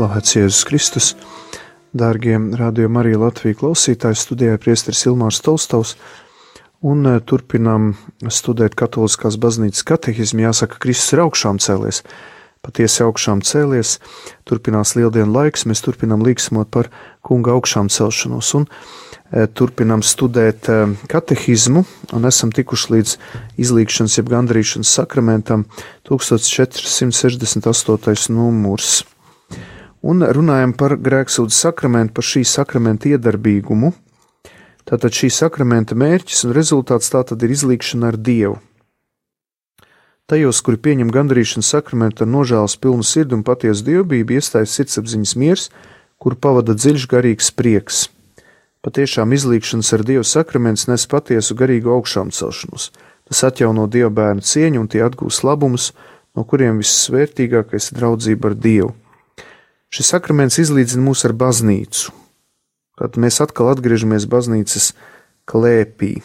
Slavēts Jēzus Kristus, dārgie Radio Marija Latvija klausītāji, studijā priesteris Ilmārs Tolstovs, un turpinām studēt Katoliskās baznīcas katehismu. Jāsaka, Kristus ir augšām cēlies, patiesi augšām cēlies, turpinās lieldienu laiks, mēs turpinām līksmot par kunga augšām celšanos, un turpinām studēt katehismu, un esam tikuši līdz izlīgšanas jeb gandrīšanas sakramentam 1468. numurs. Un runājam par grēksūdzes sakramentu, par šī sakramenta iedarbīgumu. Tātad šī sakramenta mērķis un rezultāts tātad ir izlīgšana ar Dievu. Tajos, kuri pieņem gandrīšanas sakramentu ar nožēlas pilnu sirdi un patiesu dievbijību, iestājas sirdsapziņas miers, kuru pavada dziļš garīgs prieks. Patiešām izlīgšanas ar Dievu sakraments nes patiesu garīgu augšām celšanos. Tas atjauno Dieva bērnu cieņu un tie atgūs labumus, no kuriem vissvērtīgākais ir draudzība ar Dievu. Šis sakraments izlīdzina mūs ar baznīcu. Tad mēs atkal atgriežamies baznīcas klēpī,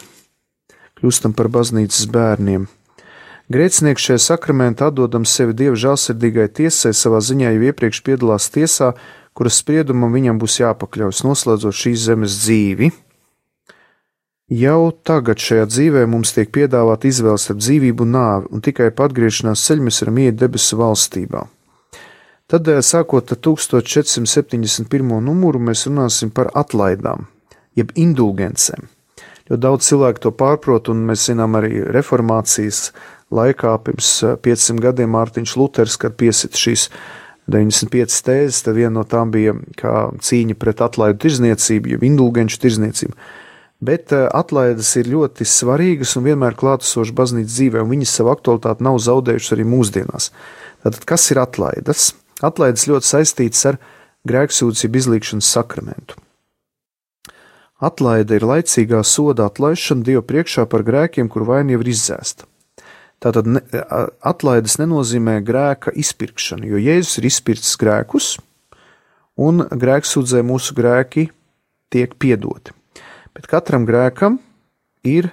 kļūstam par baznīcas bērniem. Grēcinieks šajā sakramentā atdodams sevi Dieva žēlsirdīgai tiesai, savā ziņā jau iepriekš piedalās tiesā, kuras spriedumam viņam būs jāpakļaujas, noslēdzot šīs zemes dzīvi. Jau tagad šajā dzīvē mums tiek piedāvāta izvēle starp dzīvību un nāvi, un tikai pa atgriešanās ceļu mēs varam iet debesu valstībā. Tad, sākot ar 1471. numuru, mēs runāsim par atlaidām, jeb indulgencēm. Jo daudz cilvēku to pārprot, un mēs zinām arī reformācijas laikā, pirms 500 gadiem Mārtiņš Luters, kad piesita šīs 95 tēzes, tad viena no tām bija kā cīņa pret atlaidu tirzniecību, jeb indulgenču tirzniecību. Bet atlaides ir ļoti svarīgas un vienmēr klātesošas baznīcas dzīvē, un viņas savu aktualitāti nav zaudējušas arī mūsdienās. Tātad, kas ir atlaides? Atlaides ļoti saistītas ar grēksūdzes jeb izlīgšanas sakramentu. Atlaide ir laicīgā soda atlaišana Dieva priekšā par grēkiem, kur vaina jau ir izdzēsta. Tātad atlaides nenozīmē grēka izpirkšanu, jo Jēzus ir izpircis grēkus, un grēksūdzē mūsu grēki tiek piedoti. Bet katram grēkam ir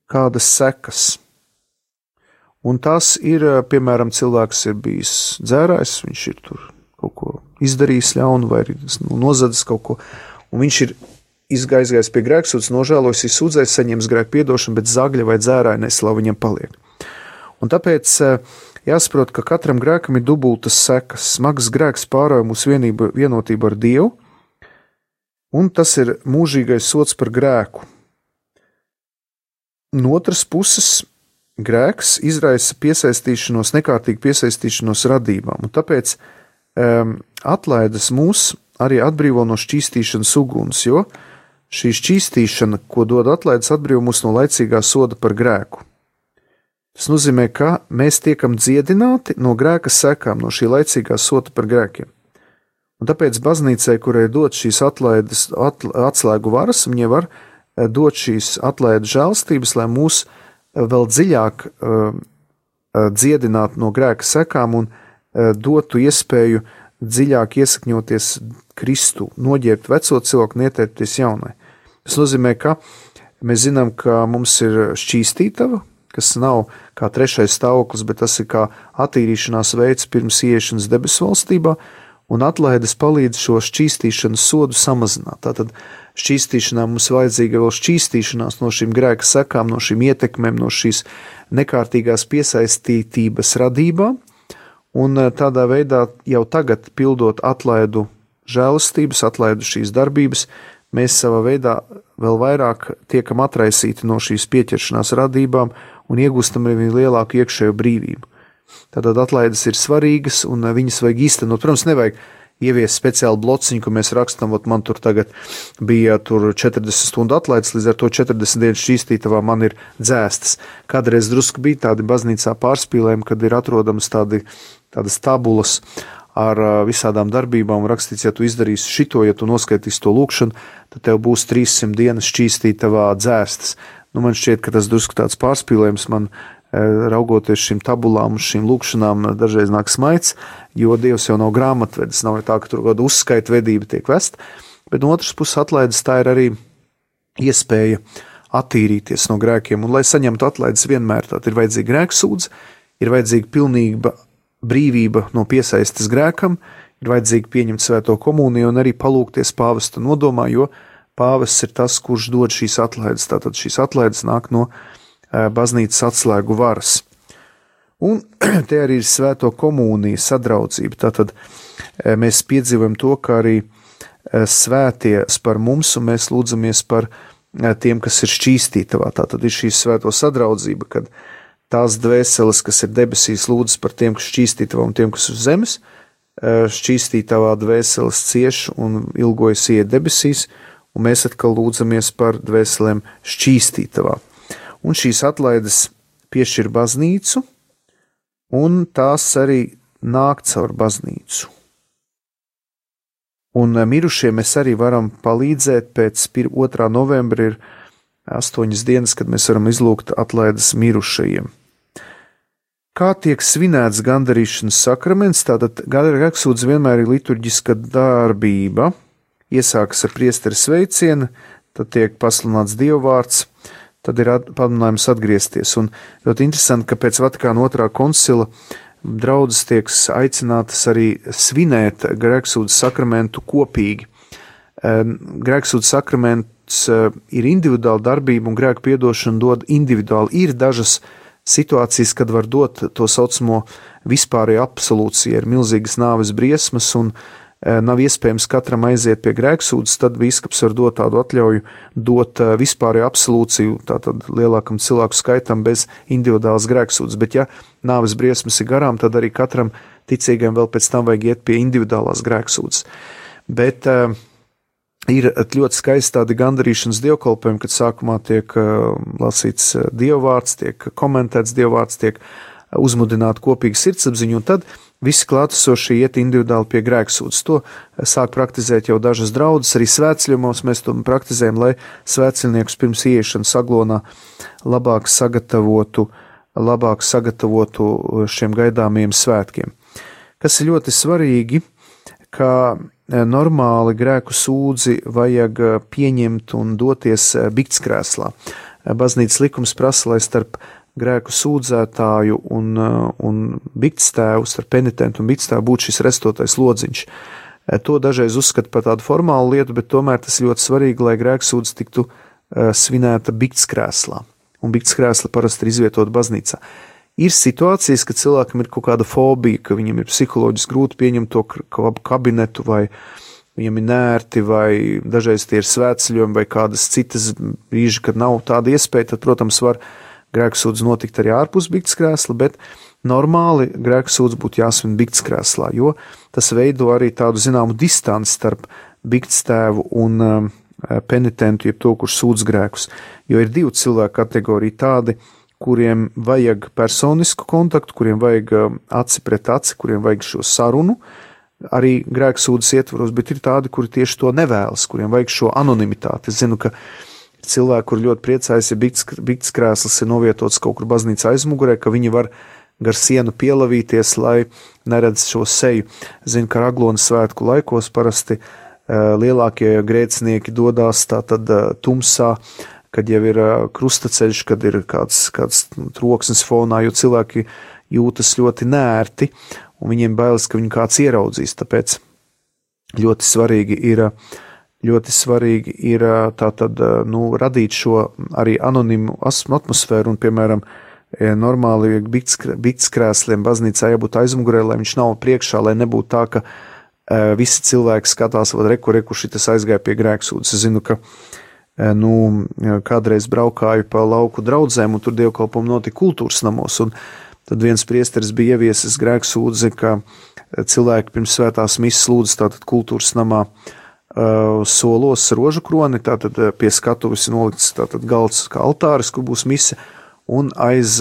kādas sekas. Un tas ir, piemēram, cilvēks ir bijis dzērājs, viņš ir tur kaut ko izdarījis ļaunu vai nozadzis kaut ko, un viņš ir izgājis pie grēksūdzes, nožēlojis, izsūdzējis, saņems grēku piedošanu, bet zagļa vai dzērāja neslava viņam paliek. Un tāpēc jāsaprot, ka katram grēkam ir dubultas sekas. Smags grēks pārauj mūsu vienotību ar Dievu, un tas ir mūžīgais sods par grēku. No otras puses, grēks izraisa piesaistīšanos, nekārtīgu piesaistīšanos radībām, un tāpēc atlaides mūs arī atbrīvo no šķīstīšanas uguns, jo šī šķīstīšana, ko dod atlaides, atbrīvo mūs no laicīgā soda par grēku. Tas nozīmē, ka mēs tiekam dziedināti no grēka sekām, no šī laicīgā soda par grēkiem. Un tāpēc baznīcai, kurai dod šīs atlaides atslēgu varas, viņa var dot šīs atlaides žēlstības, lai mūs vēl dziļāk dziedināt no grēka sekām un dotu iespēju dziļāk iesakņoties Kristu, noģērbt veco cilvēku un ietērpties jaunai. Tas nozīmē, ka mēs zinām, ka mums ir šķīstītava, kas nav kā trešais stāvoklis, bet tas ir kā attīrīšanās veids pirms ieiešanas debesu valstībā, un atlaides palīdz šo šķīstīšanas sodu samazināt. Tātad šķīstīšanā mums vajadzīga vēl šķīstīšanās no šīm grēka sekām, no šīm ietekmēm, no šīs nekārtīgās piesaistītības radībām, un tādā veidā jau tagad pildot atlaidu žēlastības, atlaidu šīs darbības, mēs savā veidā vēl vairāk tiekam atraisīti no šīs pieķeršanās radībām un iegūstam arī lielāku iekšējo brīvību. Tātad atlaides ir svarīgas un viņas vajag īstenot. Protams, nevajag ievies speciālu blociņu, ko mēs rakstam, man tur tagad bija 40 stundu atlaides, līdz ar to 40 dienas šķīstītavā man ir dzēstas. Kādreiz drusku bija tādi baznīcā pārspīlējumi, kad ir atrodams tādas tabulas ar visādām darbībām un rakstīts, ja tu izdarīsi šito, ja tu noskaitīsi to lūkšanu, tad tev būs 300 dienas šķīstītavā dzēstas. Man šķiet, ka tas drusku tāds pārspīlējums man raugoties šīm tabulām un šīm lūkšanām dažreiz nāk smaids, jo Dievs jau nav grāmatvedis, nav tā, ka tur kāda uzskaita vedība tiek vest, bet no otras puses atlaides tā ir arī iespēja attīrīties no grēkiem, un lai saņemtu atlaides vienmēr, tad ir vajadzīga grēksūdze, ir vajadzīga pilnīga brīvība no piesaistes grēkam, ir vajadzīgi pieņemt svēto komuniju un arī palūgties pāvesta nodomā, jo pāvests ir tas, kurš dod šīs atlaides. Tātad šīs atlaides nāk no baznīcas atslēgu varas. Un te arī ir svēto komunija, sadraudzība. Tātad mēs piedzīvojam to, ka arī svētie par mums, un mēs lūdzamies par tiem, kas ir šķīstītavā. Tātad ir šī svēto sadraudzība, kad tās dvēseles, kas ir debesīs, lūdzas par tiem, kas šķīstītavā un tiem, kas uz zemes. Šķīstītavā dvēseles cieš un ilgojas iet debesīs, un mēs atkal lūdzamies par dvēselēm šķīstītavā. Un šīs atlaides piešķir baznīcu, un tās arī nāk caur baznīcu. Un mirušiem mēs arī varam palīdzēt. Pēc 2. novembra ir 8 dienas, kad mēs varam izlūgt atlaides mirušajiem. Kā tiek svinēts gandarīšanas sakraments? Tātad grēksūdze vienmēr ir liturģiska darbība. Iesākas ar priestera sveicienu, tad tiek pasludināts dievvvārds, tad ir pamudinājums atgriezties. Un ļoti interesanti, ka pēc Vatikāna 2. koncila draudzes tiek aicinātas arī svinēt grēksūdzes sakramentu kopīgi. Grēksūdzes sakraments ir individuāla darbība, un grēku piedošanu dod individuāli. Ir dažas situācijas, kad var dot to saucamo vispārēju absolūciju, ir milzīgas nāves briesmas, un nav iespējams katram aiziet pie grēksūdzes, tad bīskaps var dot tādu atļauju, dot vispārēju absolūciju, tātad lielākam cilvēku skaitam bez individuālas grēksūdzes. Bet ja nāves briesmas ir garām, tad arī katram ticīgam vēl pēc tam vajag iet pie individuālās grēksūdzes. Bet ir ļoti skaisti tādi gandarīšanas dievkalpojumi, kad sākumā tiek lasīts dievvvārds, tiek komentēts dievvvārds, tiek uzmudināta kopīga sirdsapziņa, un tad visi klātesošie iet individuāli pie grēksūdzes. To sāk praktizēt jau dažas draudzes, arī svētceļos mēs to praktizējam, lai svētceļniekus pirms ieiešanas aglonā labāk sagatavotu šiem gaidāmajiem svētkiem. Kas ir ļoti svarīgi, ka normāli grēku sūdzi vajag pieņemt un doties biktskrēslā. Baznīcas likums prasa, lai starp grēku sūdzētāju un biktstēvu, starp penitentu un biktstēvu būtu šis restotais lodziņš. To dažreiz uzskata par tādu formālu lietu, bet tomēr tas ļoti svarīgi, lai grēksūdze tiktu svinēta biktskrēslā. Un biktskrēsla parasti ir izvietota baznīcā. Ir situācijas, ka cilvēkam ir kaut kāda fobija, ka viņam ir psiholoģiski grūti pieņemt to kabinetu, vai viņam ir nērti, vai dažreiz tie ir svētceļojumi, vai kādas citas brīži, kad nav tāda iespēja, tad, protams, var grēksūdze notikt arī ārpus biktskrēsla, bet normāli grēksūdze būtu jāsvin biktskrēslā, jo tas veido arī tādu zināmu distanci starp biktstāvu un penitentu, jeb to, kurš sūdz grēkus. Jo ir divu cilvēku kategorija tādi, kuriem vajag personisku kontaktu, kuriem vajag aci pret aci, kuriem vajag šo sarunu, arī grēksūdzes ietvaros, bet ir tādi, kuri tieši to nevēlas, kuriem vajag šo anonimitāti. Es zinu, ka cilvēki, kur ļoti priecājas, ja biktskrēsls ir novietots kaut kur baznīcas aizmugurē, ka viņi var gar sienu pielavīties, lai neredz šo seju. Zinu, ka Aglonas svētku laikos parasti lielākie grēcinieki dodās tātad tumsā, kad jau ir krustaceļš, kad ir kāds troksnis fonā, jo cilvēki jūtas ļoti nērti, un viņiem bailes, ka viņu kāds ieraudzīs. Tāpēc ļoti svarīgi ir tātad, radīt šo arī anonimu atmosfēru, un, piemēram, normāli biktskrēsliem baznīcā jābūt aizmugurē, lai viņš nav priekšā, lai nebūtu tā, ka visi cilvēki skatās, vai reku šitas aizgāja pie grēksūdzes. Es zinu, ka kādreiz braukāju pa lauku draudzēm, un tur dievkalpojumi notika kultūras namos, un tad viens priesteris bija ieviesis grēksūdzi, ka cilvēki pirms svētās misas lūdz tātad kultūras namā solos rožu kroni, tātad pie skatuves nolikts tātad galds kā altāris, kur būs mise, un aiz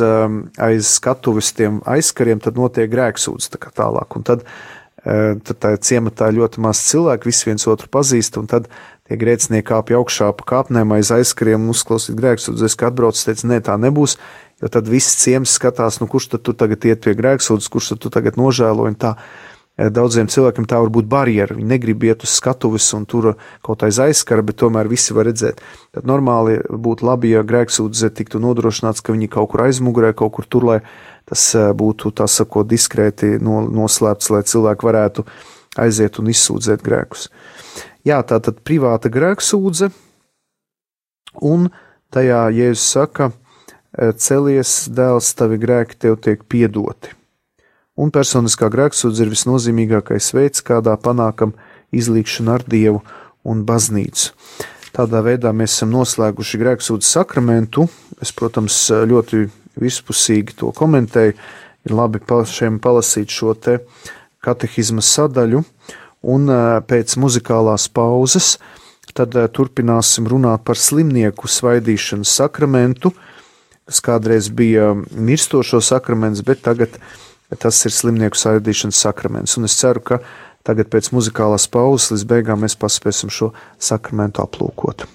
skatuves tiem aizkariem tad notiek grēksūdze tā kā tālāk, un tad tā ciematā ļoti maz cilvēku, visi viens otru pazīst, un tad tie grēcinieki kāpja augšā pa kāpnēm aiz aizkariem un uzklausīt grēksūdzes, ka atbrauc, teica, nē, tā nebūs, jo tad viss ciems skatās, kurš tad tu tagad iet pie grēksūdzes, kurš tad tu tagad nožēlo, un tā daudziem cilvēkiem tā var būt barjera, viņi negrib iet uz skatuves un tur kaut aiz aizskara, bet tomēr visi var redzēt. Tad normāli būtu labi, ja grēksūdze tiktu nodrošināts, ka viņi kaut kur aizmugurē, kaut kur tur, lai tas būtu, tā sakot, diskrēti noslēpts, lai cilvēki varētu aiziet un izsūdzēt grēkus. Jā, tā tad privāta grēksūdze, un tajā Jēzus saka, celies, dēls, tavi grēki tev tiek piedoti. Un personiskā grēksūdze ir visnozīmīgākais veids, kādā panākam izlīgšanu ar Dievu un baznīcu. Tādā veidā mēs esam noslēguši grēksūdzes sakramentu. Es, protams, ļoti vispusīgi to komentēju. Ir labi pašiem palasīt šo te katehizma sadaļu, un pēc muzikālās pauzes tad turpināsim runāt par slimnieku svaidīšanas sakramentu, kas kādreiz bija mirstošo sakraments, bet tagad tas ir slimnieku svaidīšanas sakraments. Un es ceru, ka tagad pēc muzikālās pauzes līdz beigām mēs paspēsim šo sakramentu aplūkot.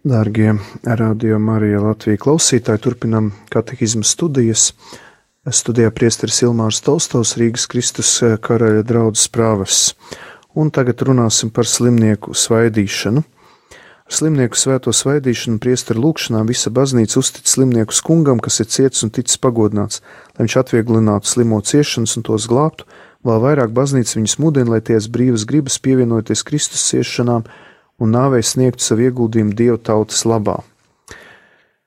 Dārgie Radio Marija Latvija klausītāji, turpinam katehismu studijas. Studijā priesteris Ilmārs Tolstovs, Rīgas Kristus karaļa draudzes prāvests. Un tagad runāsim par slimnieku svaidīšanu. Ar slimnieku svēto svaidīšanu priesteru lūgšanā visa baznīca uztic slimnieku kungam, kas ir ciets un ticis pagodināts, lai viņš atvieglinātu slimo ciešanas un tos glābtu. Vēl vairāk baznīca viņus mudina, lai tie brīvas gribas pievienoties Kristus ciešanām un nāvei sniegtu savu ieguldījumu Dieva tautas labā.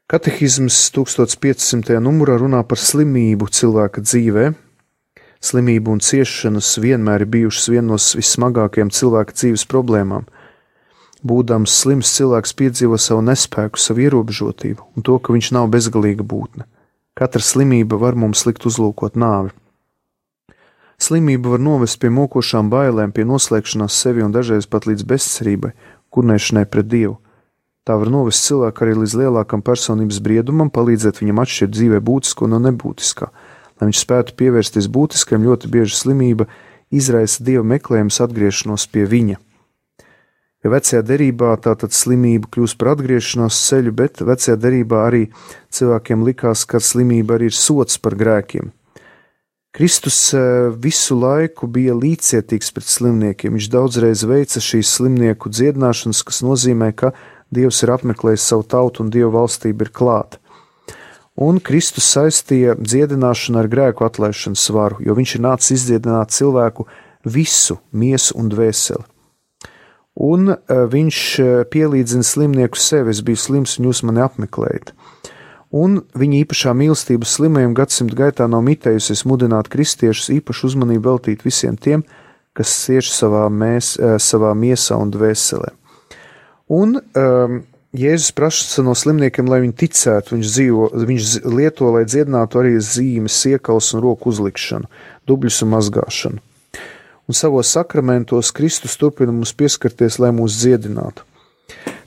Katehisms 1500. numurā runā par slimību cilvēka dzīvē. Slimība un ciešanas vienmēr ir bijušas viena no vissmagākajām cilvēka dzīves problēmām. Būdams slims, cilvēks piedzīvo savu nespēku, savu ierobežotību un to, ka viņš nav bezgalīga būtne. Katra slimība var mums likt uzlūkot nāvi. Slimība var novest pie mokošām bailēm, pie noslēgšanās sevi un dažreiz pat līdz bezcerībai, kurnēšanai pret Dievu. Tā var novest cilvēku arī līdz lielākam personības briedumam, palīdzēt viņam atšķirt dzīvē būtisko no nebūtiskā. Lai viņš spētu pievērsties būtiskajam, ļoti bieži slimība izraisa Dieva meklējums atgriešanos pie viņa. Jo vecajā derībā tātad slimība kļūst par atgriešanās ceļu, bet vecajā derībā arī cilvēkiem likās, ka slimība arī ir sots par grēkiem. Kristus visu laiku bija līdzcietīgs pret slimniekiem. Viņš daudzreiz veica šīs slimnieku dziedināšanas, kas nozīmē, ka Dievs ir apmeklējis savu tautu un Dieva valstība ir klāta. Un Kristus saistīja dziedināšanu ar grēku atlaišanas varu, jo viņš ir nācis izdziedināt cilvēku visu miesu un dvēseli. Un viņš pielīdzina slimnieku sevi, es biju slims un jūs mani apmeklējat. Un viņa īpašā mīlestība slimajiem gadsimtu gaitā nav mitējusies mudināt kristiešus īpašu uzmanību veltīt visiem tiem, kas cieš savā miesā un dvēselē. Un Jēzus prasa no slimniekiem, lai viņi ticētu, viņš lieto, lai dziedinātu arī zīmes, iekals un roku uzlikšanu, dubļus un mazgāšanu. Un savos sakramentos Kristus turpina mums pieskarties, lai mūs dziedinātu.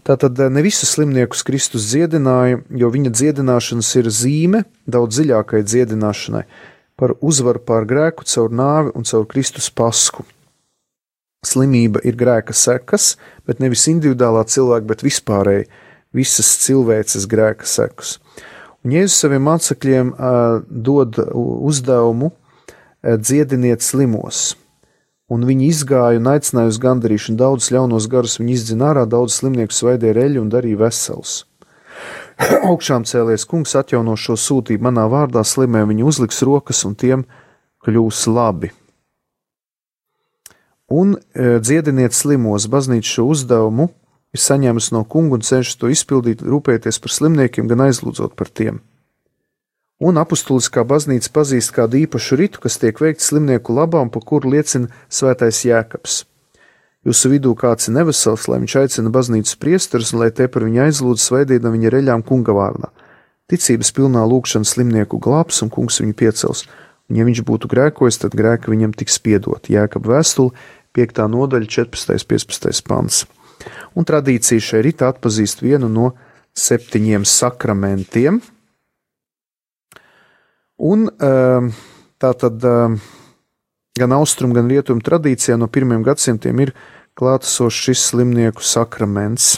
Tātad ne visus slimniekus Kristus dziedināja, jo viņa dziedināšanas ir zīme daudz dziļākai dziedināšanai par uzvaru pār grēku caur nāvi un caur Kristus pasku. Slimība ir grēka sekas, bet nevis individuālā cilvēka, bet vispārēji visas cilvēces grēka sekas. Un Jēzus saviem mācekļiem dod uzdevumu dziediniet slimos. Un viņi izgāja un aicināja uz gandarīšanu. Daudzus ļaunos garus viņi izdzina ārā, daudz slimnieku svaidīja reļu un darīja veselus. Augšām cēlies kungs atjauno šo sūtību manā vārdā, slimē viņi uzliks rokas un tiem kļūs labi. Un dziediniet slimos, baznīca šo uzdevumu ir saņēmusi no kunga un cenšas to izpildīt, rūpēties par slimniekiem, gan aizlūdzot par tiem. Un apustuliskā baznīca pazīst kādu īpašu ritu, kas tiek veikts slimnieku labā un pa kuru liecina svētais Jēkabs. Jūsu vidū kāds ir nevesels, lai viņš aicina baznīcas priesterus un lai te par viņu aizlūdz svaidīdam viņa reļām kunga vārdā. Ticības pilnā lūgšana slimnieku glābs un kungs viņu piecels. Un ja viņš būtu grēkojis, tad grēka viņam tiks piedot. Jēkaba vēstule, 5. nodaļa, 14. 15. pants. Un tradīcija šai ritā atpazīst vienu no 7 sakramentiem. Un tātad gan austrumu, gan rietumu tradīcijā no 1. gadsimtiem ir klātesošs šis slimnieku sakraments.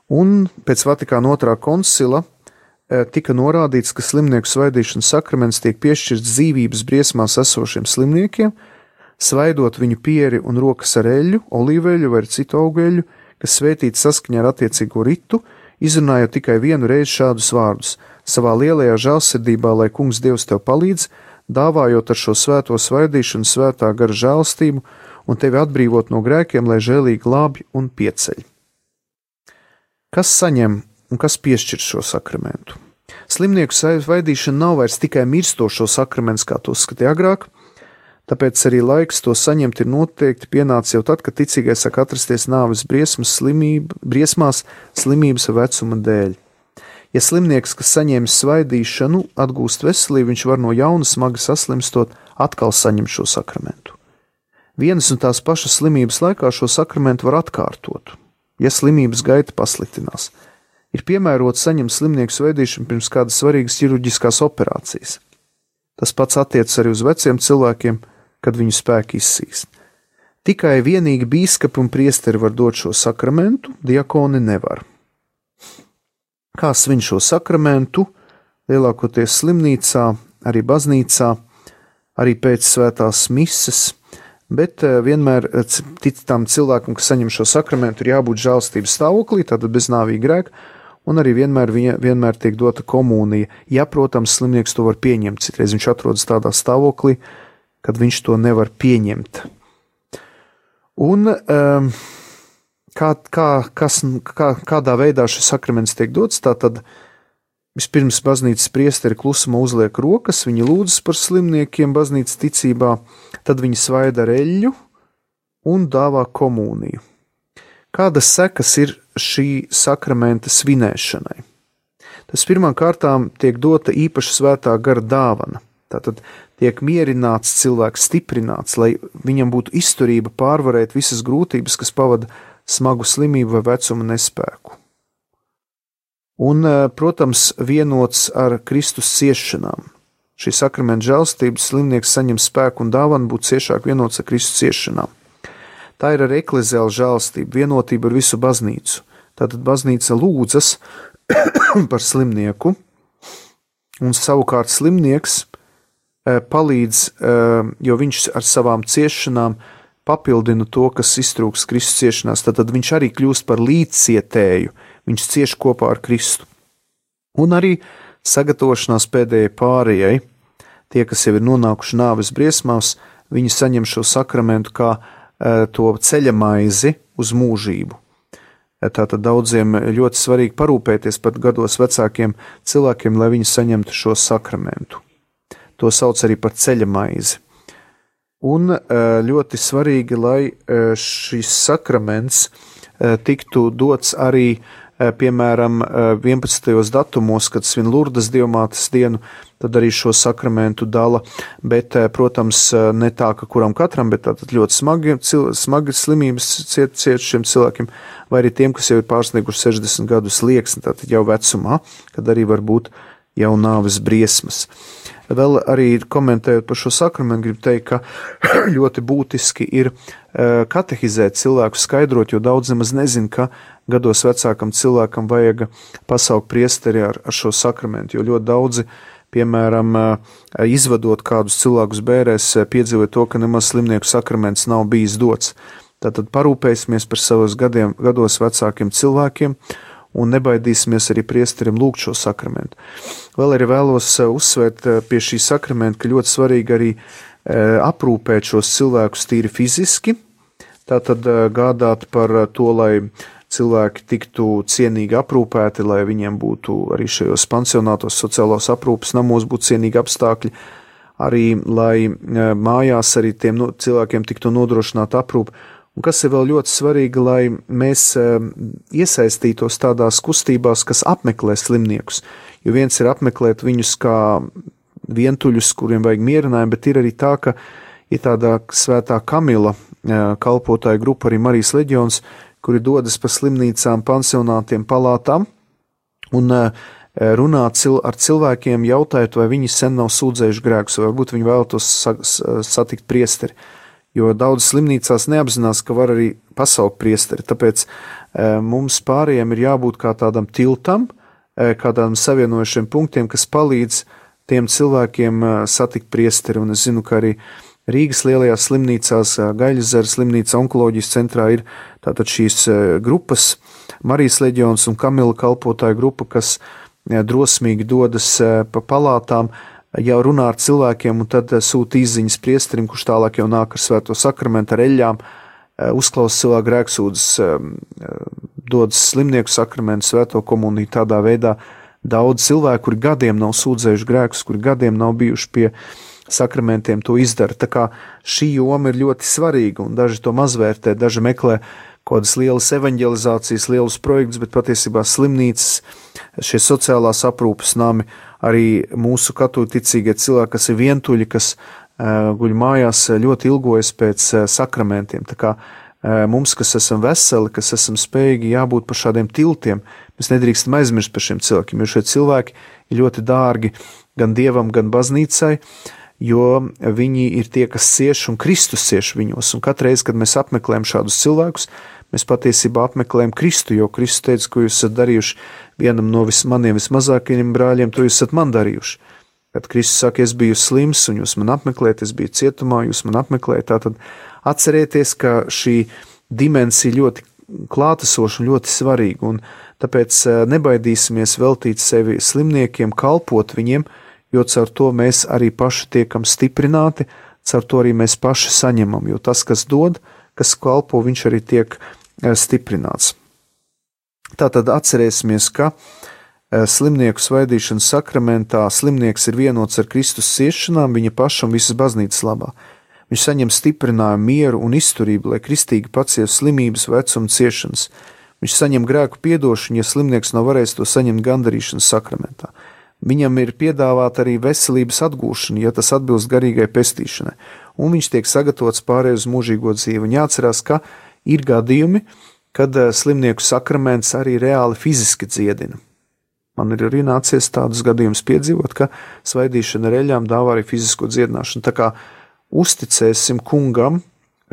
Un pēc Vatikāna 2. koncila tika norādīts, ka slimnieku svaidīšanas sakraments tiek piešķirts dzīvības briesmās esošiem slimniekiem, svaidot viņu pieri un rokas ar eļļu, olīveļu vai citu augeļu, kas svētīti saskaņā ar attiecīgo ritu, izrunājot tikai vienu reizi šādus vārdus: savā lielajā žēlsirdībā, lai kungs Dievs tev palīdz, dāvājot ar šo svēto svaidīšanu svētā gara žēlstību un tevi atbrīvot no grēkiem, lai žēlīgi glābj un pieceļ. Kas saņem un kas piešķir šo sakramentu? Slimnieku svaidīšana nav vairs tikai mirstošo sakraments, kā to skatīja agrāk, tāpēc arī laiks to saņemt ir noteikti pienācis jau tad, kad ticīgais sāk atrasties nāves briesmās slimības vecuma dēļ. Ja slimnieks, kas saņēmis svaidīšanu, atgūst veselību, viņš var no jauna smagi saslimstot atkal saņemt šo sakramentu. Vienas un tās pašas slimības laikā šo sakramentu var atkārtot, ja slimības gaita pasliktinās. Ir piemērots saņemt slimnieku svaidīšanu pirms kādas svarīgas ķirurģiskās operācijas. Tas pats attiecas arī uz veciem cilvēkiem, kad viņu spēki izsīkst. Tikai vienīgi bīskapi un priesteri var dot šo sakramentu, diakoni nevar. kā svin šo sakramentu, lielākoties slimnīcā, arī baznīcā, arī pēc svētās mises, bet vienmēr tam cilvēkam, kas saņem šo sakramentu, ir jābūt žēlstības stāvoklī, tātad bez nāvīga grēka, un arī vienmēr tiek dota komunija. Ja, protams, slimnieks to var pieņemt, citreiz viņš atrodas tādā stāvoklī, kad viņš to nevar pieņemt. Un kādā veidā šis sakraments tiek dots, tātad vispirms baznīcas priesteri klusumā uzliek rokas, viņi lūdzas par slimniekiem baznīcas ticībā, tad viņi svaida ar eļļu un dāvā komuniju. Kādas sekas ir šī sakramenta svinēšanai? Tas pirmām kārtām tiek dota īpaša svētā gara dāvana. Tātad tiek mierināts cilvēks, stiprināts, lai viņam būtu izturība pārvarēt visas grūtības, kas pavada smagu slimību vai vecuma nespēku. Un, protams, vienots ar Kristus ciešanām. Šī sakramenta žēlstības slimnieks saņem spēku un dāvanu būt ciešāk vienots ar Kristus ciešanām. Tā ir arī ekleziāla žēlstība, vienotība ar visu baznīcu. Tātad baznīca lūdzas par slimnieku, un savukārt slimnieks palīdz, jo viņš ar savām ciešanām papildina to, kas iztrūks Kristus ciešanās, tad viņš arī kļūst par līdzcietēju, viņš cieš kopā ar Kristu. Un arī sagatavošanās pēdējai pārējai, tie, kas jau ir nonākuši nāves briesmās, viņi saņem šo sakramentu kā to ceļamaizi uz mūžību. Tātad daudziem ļoti svarīgi parūpēties par gados vecākiem cilvēkiem, lai viņi saņemtu šo sakramentu. To sauc arī par ceļamaizi. Un ļoti svarīgi, lai šis sakraments tiktu dots arī, piemēram, 11. datumos, kad svin Lurdas dievmātes dienu, tad arī šo sakramentu dala, bet, protams, ne tā, ka kuram katram, bet tātad ļoti smagi slimības ciet šiem cilvēkiem, vai arī tiem, kas jau ir pārsnieguši 60 gadu slieksni, tātad jau vecumā, kad arī var būt jau nāves briesmas. Vēl arī komentējot par šo sakramentu, gribu teikt, ka ļoti būtiski ir katehizēt cilvēku, skaidrot, jo daudz nemaz nezin, ka gados vecākam cilvēkam vajag pasaukt priesteri ar šo sakramentu, jo ļoti daudzi, piemēram, izvadot kādus cilvēkus bērēs, piedzīvoja to, ka nemaz slimnieku sakraments nav bijis dots. Tātad parūpēsimies par savos gados vecākiem cilvēkiem, un nebaidīsimies arī priesterim lūgt šo sakramentu. Vēl arī vēlos uzsvērt pie šī sakramenta, ka ļoti svarīgi arī aprūpēt šos cilvēkus tīri fiziski, tātad gādāt par to, lai cilvēki tiktu cienīgi aprūpēti, lai viņiem būtu arī šajos pansionātos sociālos aprūpes namos būtu cienīgi apstākļi, arī lai mājās arī tiem cilvēkiem tiktu nodrošināta aprūpe. Un kas ir vēl ļoti svarīgi, lai mēs iesaistītos tādās kustībās, kas apmeklē slimniekus. Jo viens ir apmeklēt viņus kā vientuļus, kuriem vajag mierinājumu, bet ir arī tā, ka ir tāda svētā Kamila kalpotāja grupa, arī Marijas leģions, kuri dodas pa slimnīcām, pansionātiem, palātām un runā ar cilvēkiem, jautājot, vai viņi sen nav sūdzējuši grēkus, vai varbūt viņi vēlētos satikt priesteri. Jo daudz slimnīcās neapzinās, ka var arī pasaukt priesteri, tāpēc mums pārējiem ir jābūt kā tādam tiltam, kādām savienojušiem punktiem, kas palīdz tiem cilvēkiem satikt priesteri, un es zinu, ka arī Rīgas lielajās slimnīcās, Gaļaszara slimnīca onkoloģijas centrā ir tātad šīs grupas, Marijas leģions un Kamila kalpotāja grupa, kas drosmīgi dodas pa palātām, jau runā ar cilvēkiem un tad sūta izziņas priesterim, kurš tālāk jau nāk ar svēto sakramentu ar eļļām, uzklausa cilvēku grēksūdzes, dodas slimnieku sakramentu, svēto komuniju, tādā veidā daudz cilvēku, kuri gadiem nav sūdzējuši grēkus, kuri gadiem nav bijuši pie sakramentiem, to izdara. Tā kā šī joma ir ļoti svarīga un daži to mazvērtē, daži meklē kādas lielas evaņģelizācijas, lielus projektus, bet patiesībā slimnīcas, šie sociālās aprūpes nami, arī mūsu katoļticīgie cilvēki, kas ir vientuļi, kas guļ mājās, ļoti ilgojas pēc sakramentiem. Tā kā mums, kas esam veseli, kas esam spējīgi, jābūt par šādiem tiltiem. Mēs nedrīkstam aizmirst par šiem cilvēkiem, jo šie cilvēki ir ļoti dārgi gan Dievam, gan baznīcai, jo viņi ir tie, kas cieš un Kristus cieš viņos. Un katreiz, kad mēs apmeklējam šādus cilvēkus, mēs patiesībā apmeklējam Kristu, jo Kristus teica, ko jūs esat darījuši vienam no maniem vismazākajiem brāļiem, to jūs esat man darījuši. Kad Kristus saka, es biju slims un jūs man apmeklējat, es biju cietumā, jūs man apmeklējat, tātad atcerieties, ka šī dimensija ļoti klātesoša un ļoti svarīga, un tāpēc nebaidīsimies veltīt sevi slimniekiem, kalpot viņiem, jo caur to mēs arī paši tiekam stiprināti, caur to arī mēs paši saņemam, jo tas, kas dod, kas kalpo, viņš arī tiek stiprināts. Tātad atcerēsimies, ka slimnieku svaidīšanas sakramentā slimnieks ir vienots ar Kristus ciešanām viņa paša un visas baznīcas labā. Viņš saņem stiprinājumu, mieru un izturību, lai kristīgi pacieš slimības, vecumu, ciešanas. Viņš saņem grēku piedošanu, ja slimnieks nav varējis to saņemt gandarīšanas sakramentā. Viņam ir piedāvāta arī veselības atgūšana, ja tas atbilst garīgai pestīšanai, un viņš tiek sagatavots pārēj uz mūžīgo dzīvi. Un jāatcerās, ka ir gadījumi, kad slimnieku sakraments arī reāli fiziski dziedina. Man ir arī nācies tādus gadījumus piedzīvot, ka svaidīšana ar eļļām dāvā arī fizisko dziedināšanu. Tā kā uzticēsim kungam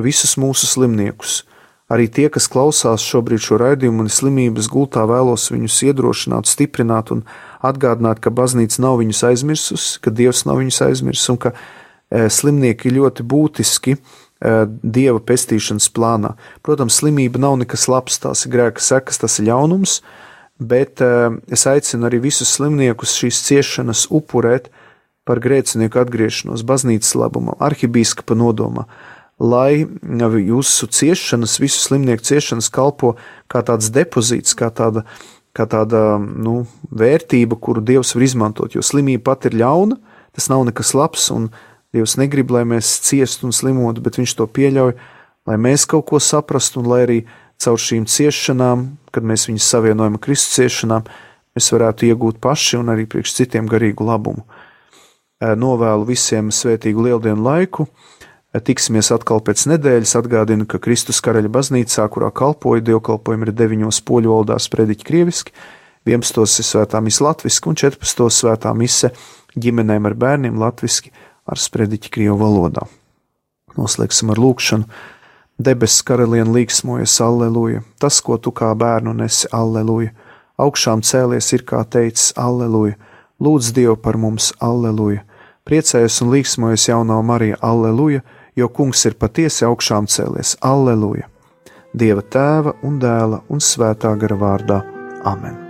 visus mūsu slimniekus. Arī tie, kas klausās šobrīd šo raidījumu un slimības gultā, vēlos viņus iedrošināt, stiprināt un atgādināt, ka baznīca nav viņus aizmirsusi, ka Dievs nav viņus aizmirsis un ka slimnieki ir ļoti būtiski Dieva pestīšanas plānā. Protams, slimība nav nekas labs, tās ir grēka sekas, tas ir ļaunums, bet es aicinu arī visus slimniekus šīs ciešanas upurēt par grēcinieku atgriešanos baznīcas labumā, arhibīskapa nodomā, lai jūsu ciešanas, visu slimnieku ciešanas kalpo kā tāds depozīts, kā tāda vērtība, kuru Dievs var izmantot, jo slimība pat ir ļauna, tas nav nekas labs, un Dievs negrib, lai mēs ciestu un slimotu, bet viņš to pieļauj, lai mēs kaut ko saprastu, un lai arī caur šīm ciešanām, kad mēs viņus savienojam ar Kristus ciešanām, mēs varētu iegūt paši un arī priekš citiem garīgu labumu. Novēlu visiem svētīgu lieldienu laiku, tiksimies atkal pēc nedēļas, atgādinu, ka Kristus Karaļa baznīcā, kurā kalpoju, dievkalpojumi ir 9 poļu valodā sprediķi krieviski, 11 ir svētā mise latviski un 14 svētā mise ģimenēm ar bērniem latviski ar sprediķi krievu valodā. Noslēgsim ar lūkšanu. Debesis karaliene līksmojas, alleluja, tas, ko tu kā bērnu nesi, alleluja, augšām cēlies ir kā teicis, alleluja, lūdz Dievu par mums, alleluja, priecājas un līksmojas jaunā Marija, alleluja, jo kungs ir patiesi augšām cēlies, alleluja, Dieva tēva un dēla un svētā gara vārdā, amen.